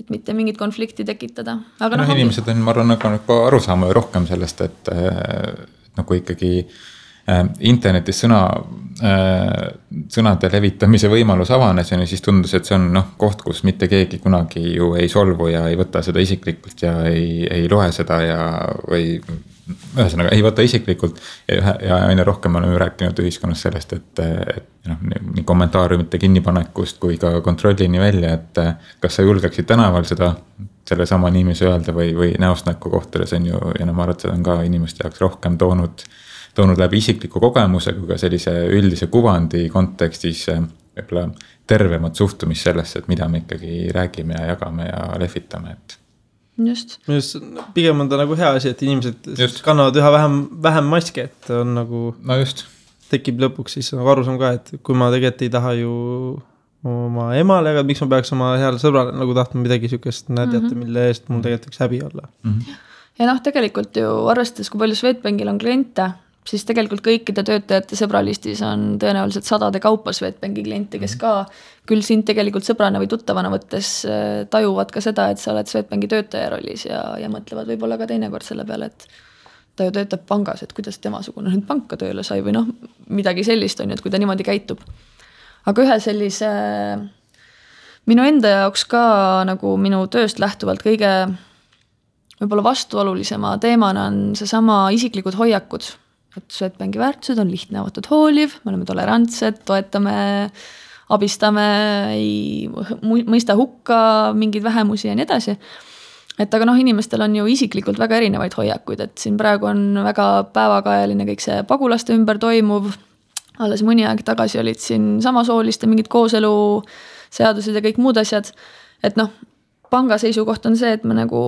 et mitte mingit konflikti tekitada. Aga inimesed on, ma arvan, nagu aru saama rohkem sellest, et nagu ikkagi internetis sõnade levitamise võimalus avanes ja siis tundus, et see on koht, kus mitte keegi kunagi ju ei solvu ja ei võta seda isiklikult ja ei loe seda või ühesõnaga ei võta isiklikult ja aina rohkem oleme rääkinud ühiskonnas sellest, et nii kommentaariumite kinnipanekust kui ka kontrollini välja, et kas sa julgeksid tänaval selle sama inimese öelda või näost näkku kohtades on ju, ja ma arvan, et seda on ka inimeste jaoks rohkem toonud läbi isikliku kogemuse kui ka sellise üldise kuvandi kontekstis võib-olla tervemat suhtumist sellesse, et mida me ikkagi räägime ja jagame ja lehvitame. Just. Pigem on ta nagu hea asi, et inimesed kannavad üha vähem maske, et on nagu tekib lõpuks siis nagu aru ka, et kui ma tegelikult ei taha ju oma emale, aga miks ma peaks oma heale sõbrale nagu tahtma midagi sükest näidata, mille eest mul tegelikult võiks häbi olla. Ja tegelikult ju arvestades, kui palju Swedbankil on kliente, siis tegelikult kõikide töötajate sõbralistis on tõenäoliselt sadade kaupa Swedbanki kliente, kes ka küll sind tegelikult sõbrana või tuttavana võttes tajuvad ka seda, et sa oled Swedbanki töötaja rollis ja mõtlevad võib-olla ka teinekord selle peale, et ta ju töötab pangas, et kuidas temasugune nüüd panka tööle sai või midagi sellist on ju, et kui ta niimoodi käitub. Aga ühe sellise minu enda jaoks ka nagu minu tööst lähtuvalt kõige võib-olla vastuolulisema teemana on seesama isiklikud hoiakud. Et Swedbanki väärtused on lihtne, avatud, hooliv, me oleme tolerantsed, toetame, abistame, ei mõista hukka mingeid vähemusi ja nii edasi. Et aga inimestel on ju isiklikult väga erinevaid hoiakuid, et siin praegu on väga päevakajaline kõik see pagulaste ümber toimuv. Alles mõni aeg tagasi olid siin samasooliste mingid kooselu seadused ja kõik muud asjad. Et panga seisukoht on see, et me nagu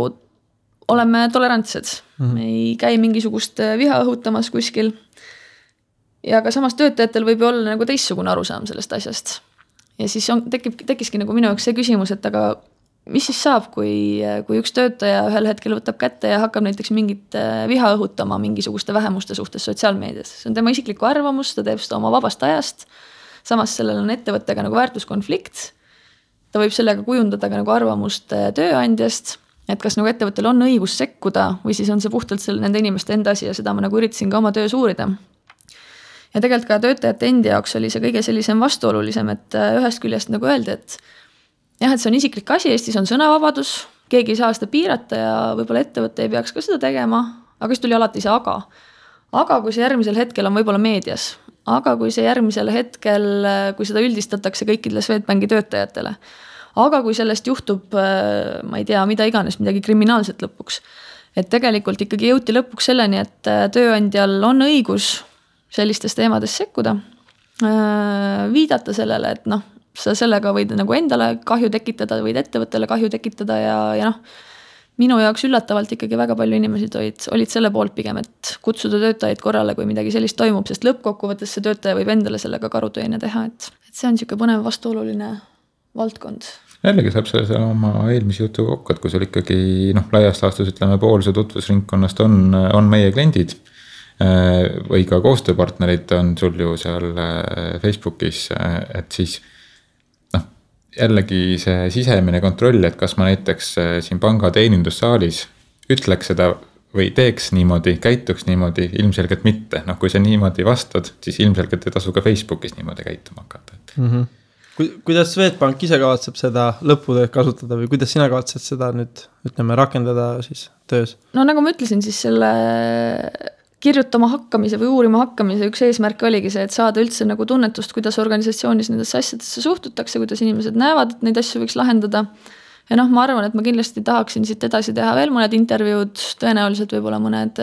oleme tolerantsed, me ei käi mingisugust viha õhutamas kuskil. Ja ka samas töötajatel võib ju olla nagu teistsugune arusaam sellest asjast. Ja siis tekkiski nagu minu jaoks see küsimus, et aga mis siis saab, kui üks töötaja ühel hetkel võtab kätte ja hakkab näiteks mingit viha õhutama mingisuguste vähemuste suhtes sotsiaalmeedias. See on tema isiklikku arvamus, ta teeb seda oma vabast ajast. Samas sellel on ettevõttega nagu väärtuskonflikt. ta võib sellega kujundada ka nagu arvamust tööandjast, et kas nagu ettevõttel on õigus sekkuda või siis on see puhtalt nende inimeste enda asi ja seda ma nagu üritasin ka oma töös uurida. Ja tegelikult ka töötajate endi jaoks oli see kõige sellisem vastuolulisem, et ühest küljest nagu öeldi, et jah, et see on isiklik asi, Eestis on sõnavabadus, keegi ei saa seda piirata ja võib-olla ettevõte ei peaks ka seda tegema, aga siis tuli alati see aga. Aga kui see järgmisel hetkel on võib-olla meedias, aga kui see järgmisel hetkel, kui seda üldistatakse kõikidele Swedbanki töötajatele, aga kui sellest juhtub, ma ei tea, mida iganes, midagi kriminaalset lõpuks, et tegelikult ikkagi jõuti lõpuks selleni, et tööandjal on õigus sellistes teemades sekkuda, viidata sellele, et noh, sa sellega võid nagu endale kahju tekitada, võid ettevõttele kahju tekitada ja noh, minu jaoks üllatavalt ikkagi väga palju inimesi olid selle poolt pigem, et kutsuda töötajaid korrale, kui midagi sellist toimub, sest lõppkokkuvõttes see töötaja võib endale sellega karuteene teha, et see on niisugune põnev vastuoluline valdkond. Jällegi saab selle oma eelmise jutu kokku, et kui sul ikkagi laiast laastus ütleme pool see tutvusringkonnast on meie kliendid või ka koostööpartnerid on sul ju seal Facebookis, et siis jällegi see sisemine kontroll, et kas ma näiteks siin panga teenindussaalis ütleks seda või teeks niimoodi, käituks niimoodi, ilmselgelt mitte. Kui sa niimoodi vastad, siis ilmselgelt ei tasu ka Facebookis niimoodi käituma hakata. Kuidas Swedbank ise kavatseb seda lõputööd kasutada või kuidas sina kavatsed seda nüüd rakendada siis töös? No nagu ma ütlesin, siis selle kirjutama hakkamise või uurima hakkamise üks eesmärk oligi see, et saada üldse nagu tunnetust, kuidas organisatsioonis nendesse asjadesse suhtutakse, kuidas inimesed näevad, et neid asju võiks lahendada. Ja ma arvan, et ma kindlasti tahaksin siit edasi teha veel mõned intervjuud, tõenäoliselt võib-olla mõned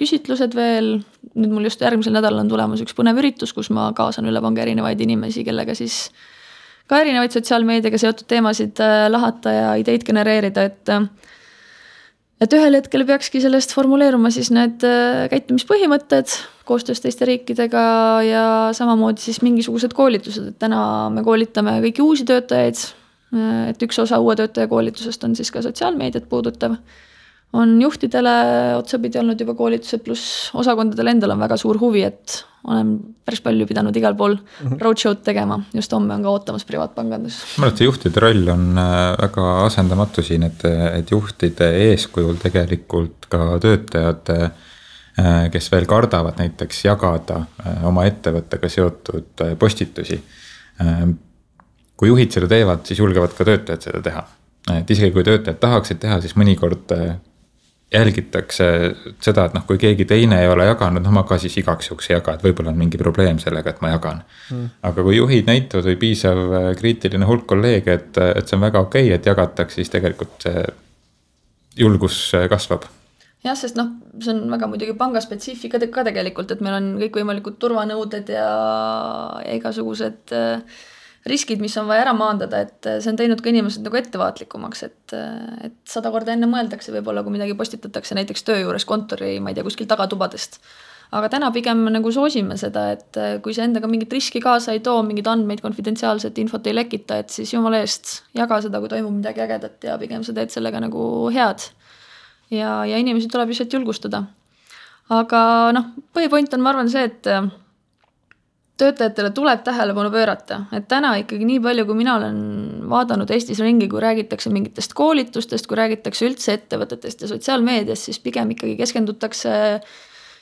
küsitlused veel. Nüüd mul just järgmisel nädalal on tulemas üks põnev üritus, kus ma kaasan üle panga erinevaid inimesi, kellega siis ka erinevaid sotsiaalmeediaga seotud teemasid lahata ja ideid genereerida, et ühel hetkel peakski sellest formuleeruma siis need käitumispõhimõtted koostöös teiste riikidega ja samamoodi siis mingisugused koolitused, et täna me koolitame kõiki uusi töötajaid, et üks osa uue töötaja koolitusest on siis ka sotsiaalmeediat puudutav. On juhtidele otsapidi olnud juba koolitused, pluss osakondadel endal on väga suur huvi, et olen päris palju pidanud igal pool roadshow'd tegema. Just homme on ka ootamas privaatpangandus. Ma arvan, et see juhtide roll on väga asendamatu siin, et juhtide eeskujul tegelikult ka töötajad, kes veel kardavad näiteks jagada oma ettevõttega seotud postitusi. Kui juhid seda teevad, siis julgevad ka töötajad seda teha. Et isegi kui töötajad tahaksid teha, siis mõnikord jälgitakse seda, et kui keegi teine ei ole jaganud, ma ka siis igaks juhuks ei jaga, et võib-olla on mingi probleem sellega, et ma jagan. Aga kui juhid näitavad või piisav kriitiline hulk kolleege, et see on väga okei, et jagatakse, siis tegelikult see julgus kasvab. Jah, sest see on väga muidugi pangaspetsiifika ka tegelikult, et meil on kõikvõimalikud turvanõuded ja igasugused riskid, mis on vaja ära maandada, et see on teinud ka inimesed nagu ettevaatlikumaks, et 100 korda enne mõeldakse võib-olla, kui midagi postitatakse näiteks töö juures kontori, ma ei tea, kuskil tagatubadest. Aga täna pigem nagu soosime seda, et kui see endaga mingit riski kaasa ei too, mingid andmeid, konfidentsiaalset infot ei lekita, et siis jumala eest jaga seda, kui toimub midagi ägedat ja pigem sa teed sellega nagu head. Ja inimesi tuleb lihtsalt julgustada. Aga põhipoint on, ma arvan, see, et töötajatele tuleb tähelepanu pöörata, et täna ikkagi nii palju, kui mina olen vaadanud Eestis ringi, kui räägitakse mingitest koolitustest, kui räägitakse üldse ettevõtetest ja sotsiaalmeediast, siis pigem ikkagi keskendutakse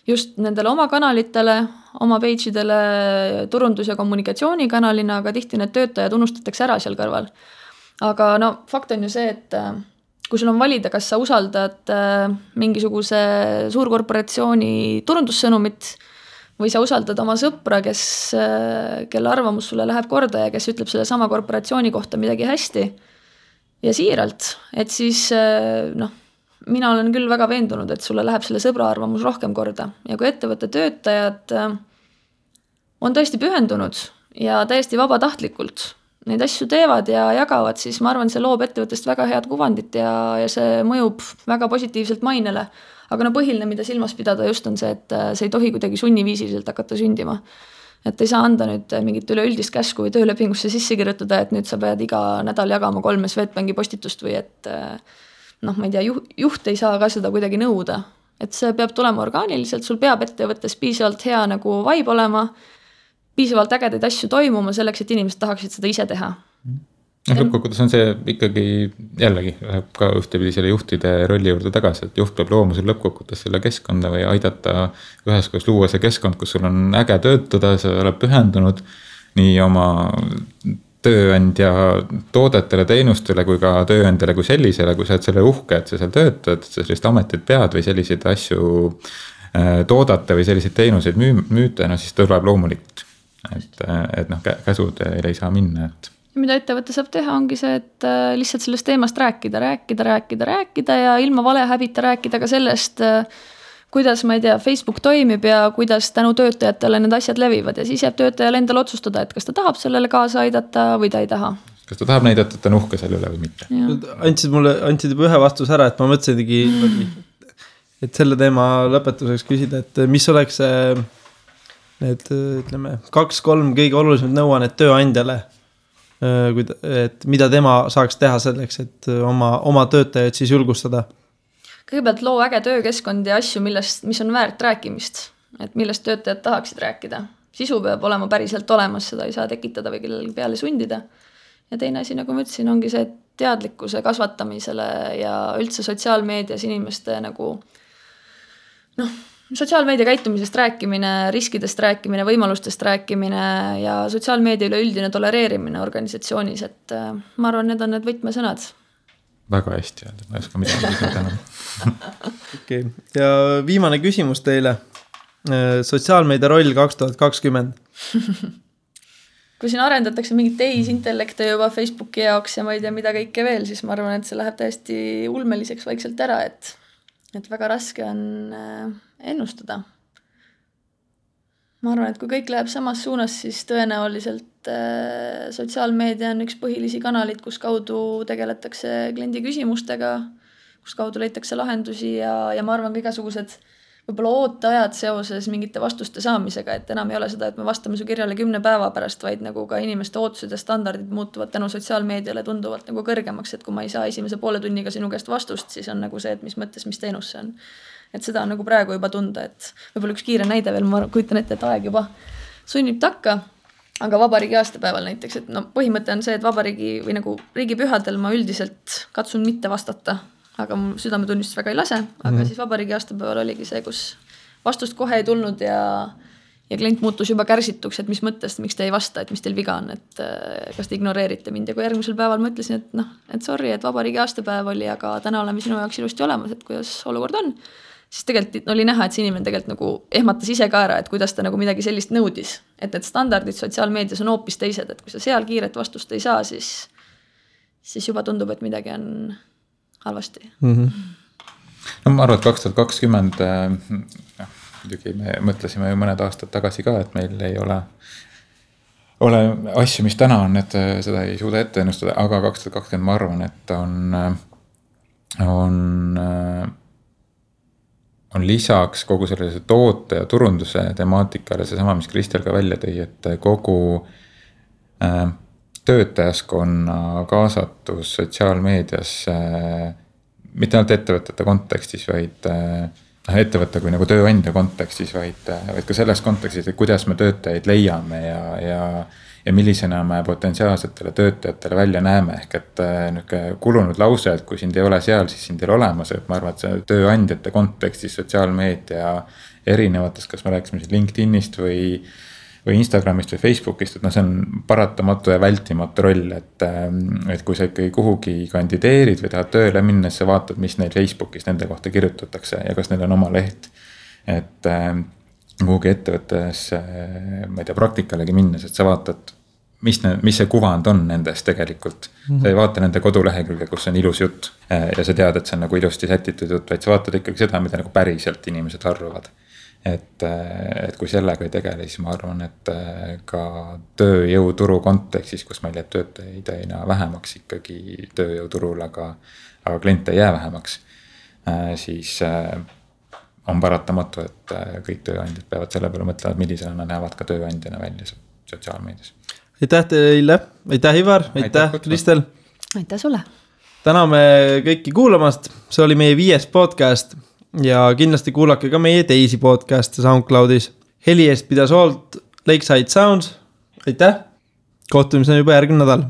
just nendele oma kanalitele, oma page'idele turundus- ja kommunikatsioonikanalina, aga tihti need töötajad unustatakse ära seal kõrval. Aga fakt on ju see, et kui sul on valida, kas sa usaldad mingisuguse suurkorporatsiooni turundussõnumit või sa usaldad oma sõpra, kelle arvamus sulle läheb korda ja kes ütleb selle sama korporatsiooni kohta midagi hästi ja siiralt, et siis mina olen küll väga veendunud, et sulle läheb selle sõbra arvamus rohkem korda. Ja kui ettevõtte töötajad on tõesti pühendunud ja täiesti vabatahtlikult neid asju teevad ja jagavad, siis ma arvan, see loob ettevõttest väga head kuvandit ja see mõjub väga positiivselt mainele. Aga põhiline, mida silmas pidada just on see, et see ei tohi kuidagi sunniviisiliselt hakata sündima. Et ei saa anda nüüd mingit üleüldist käsku või töölepingusse sisse kirjutada, et nüüd sa pead iga nädal jagama 3 Swedbanki postitust või et ma ei tea, juht ei saa ka seda kuidagi nõuda. Et see peab tulema orgaaniliselt, sul peab ettevõttes piisavalt hea nagu vibe olema, piisavalt ägedaid asju toimuma selleks, et inimesed tahaksid seda ise teha. lõppkokkuvõttes on see ikkagi jällegi läheb ka ühtepidi selle juhtide rolli juurde tagasi, et juht peab looma sul lõppkokkuvõttes selle keskkonda või aidata üheskoos luua see keskkond, kus sul on äge töötada, sa oled pühendunud nii oma tööandja toodetele, teenustele kui ka tööandjale kui sellisele, kui sa oled selle uhke, et sa seal töötad, sa sellist ametit pead või selliseid asju toodate või selliseid teenuseid müüte, no siis tuleb loomulikult, et noh, käsud ei saa minna, et mida ettevõte saab teha, ongi see, et lihtsalt sellest teemast rääkida ja ilma valehäbita rääkida ka sellest, kuidas, ma ei tea, Facebook toimib ja kuidas tänu töötajatele need asjad levivad ja siis jääb töötajale endale otsustada, et kas ta tahab sellele kaasa aidata või ta ei taha. Kas ta tahab näidata, et ta on uhke selle üle või mitte? Andsid juba ühe vastuse ära, et ma mõtlesingi, et selle teema lõpetuseks küsida, et mis oleks need, ütleme, 2-3 kõige olulisemad nõuannet tööandjale, et mida tema saaks teha selleks, et oma töötajaid siis julgustada? Kõigepealt loo äge töökeskkond ja asju, mis on väärt rääkimist, et millest töötajad tahaksid rääkida. Sisu peab olema päriselt olemas, seda ei saa tekitada või kellelgi peale sundida. Ja teine asi, nagu ma ütlesin, ongi see teadlikkuse kasvatamisele ja üldse sotsiaalmeedias inimeste nagu sotsiaalmeedia käitumisest rääkimine, riskidest rääkimine, võimalustest rääkimine ja sotsiaalmeedia üleüldine tolereerimine organisatsioonis, et ma arvan, need on need võtmesõnad. Väga hästi öelda, ma ei oska midagi täna. Okay. Ja viimane küsimus teile. Sotsiaalmeedia roll 2020. Kui siin arendatakse mingit tehisintellekte juba Facebooki jaoks ja ma ei tea mida kõike veel, siis ma arvan, et see läheb täiesti ulmeliseks vaikselt ära, et väga raske on ennustada. Ma arvan, et kui kõik läheb samas suunas, siis tõenäoliselt sotsiaalmeedia on üks põhilisi kanalid, kus kaudu tegeletakse kliendi küsimustega, kus kaudu leitakse lahendusi ja ma arvan ka igasugused võib-olla ooteajad seoses mingite vastuste saamisega, et enam ei ole seda, et me vastame su kirjale 10 päeva pärast, vaid nagu ka inimeste ootused ja standardid muutuvad tänu sotsiaalmeediale tunduvalt nagu kõrgemaks, et kui ma ei saa esimese poole tunniga sinu käest vastust, siis on nagu see, et mis mõttes, mis teenus see on. Et seda on nagu praegu juba tunda, et võib-olla üks kiire näide veel, ma kujutan ette, et aeg juba sunnib takka, aga vabariigi aastapäeval näiteks, et põhimõte on see, et vabariigi või nagu riigipühadel ma üldiselt katsun mitte vastata, aga mu südametunnistust väga ei lase, aga siis vabariigi aastapäeval oligi see, kus vastust kohe ei tulnud ja klient muutus juba kärsituks, et mis mõttest, miks te ei vasta, et mis teil viga on, et kas te ignoreerite mind ja kui järgmisel päeval ma ütlesin, et sorry, et vabariigi aastapäev oli, aga täna oleme sinu jaoks ilusti olemas, et kuidas olukord on, siis tegelikult oli näha, et see inimene tegelikult nagu ehmatas ise ka ära, et kuidas ta nagu midagi sellist nõudis, et need standardid sotsiaalmeedias on hoopis teised, et kui sa seal kiiret vastust ei saa, siis juba tundub, et midagi on halvasti. No ma arvan, et 2020 muidugi me mõtlesime ju mõned aastad tagasi ka, et meil ei ole asju, mis täna on, et seda ei suuda ette ennustada, aga 2020 ma arvan, et on lisaks kogu sellise toote ja turunduse temaatikale seesama, mis Kristel ka välja tõi, et kogu töötajaskonna kaasatus sotsiaalmeedias mitte ainult ettevõtete kontekstis, vaid ettevõtte kui nagu tööandja kontekstis, vaid ka selles kontekstis, et kuidas me töötajaid leiame ja millisena me potentsiaalsetele töötajatele välja näeme, ehk et kulunud lause, et kui sind ei ole seal, siis sind ei ole olemas, et ma arvan, et see tööandjate kontekstis sotsiaalmeedia erinevates, kas me rääksime siis LinkedInist või Instagramist või Facebookist, et see on paratamatu ja vältimatu roll, et kui sa ikkagi kuhugi kandideerid või tahad tööle minna, siis sa vaatad, mis neil Facebookis nende kohta kirjutatakse ja kas neil on oma leht, et kuhugi ettevõttes, ma ei tea, praktikalegi minnes, et sa vaatad, mis see kuvand on nendest tegelikult. Sa ei vaata nende kodulehekülge, kus on ilus jutt ja sa tead, et see on nagu ilusti sätitud jutt, vaid sa vaatad ikkagi seda, mida nagu päriselt inimesed arvavad. Et kui sellega ei tegele, siis ma arvan, et ka tööjõuturu kontekstis, kus meil jääb töötajaid aina vähemaks ikkagi tööjõuturul, aga kliente ei jää vähemaks, siis on paratamatu, et kõik tööandjad peavad selle peale mõtlevad, millisena nad näevad ka tööandjana välja sotsiaalmeedias. Aitäh teile, aitäh Ivar, aitäh Kristel. Aitäh sulle. Täname kõiki kuulamast, see oli meie 5. podcast ja kindlasti kuulake ka meie teisi podcast'e SoundCloudis. Heli eest pidas hoolt Lakeside Sounds, aitäh, kohtumiseni juba järgmine nädal.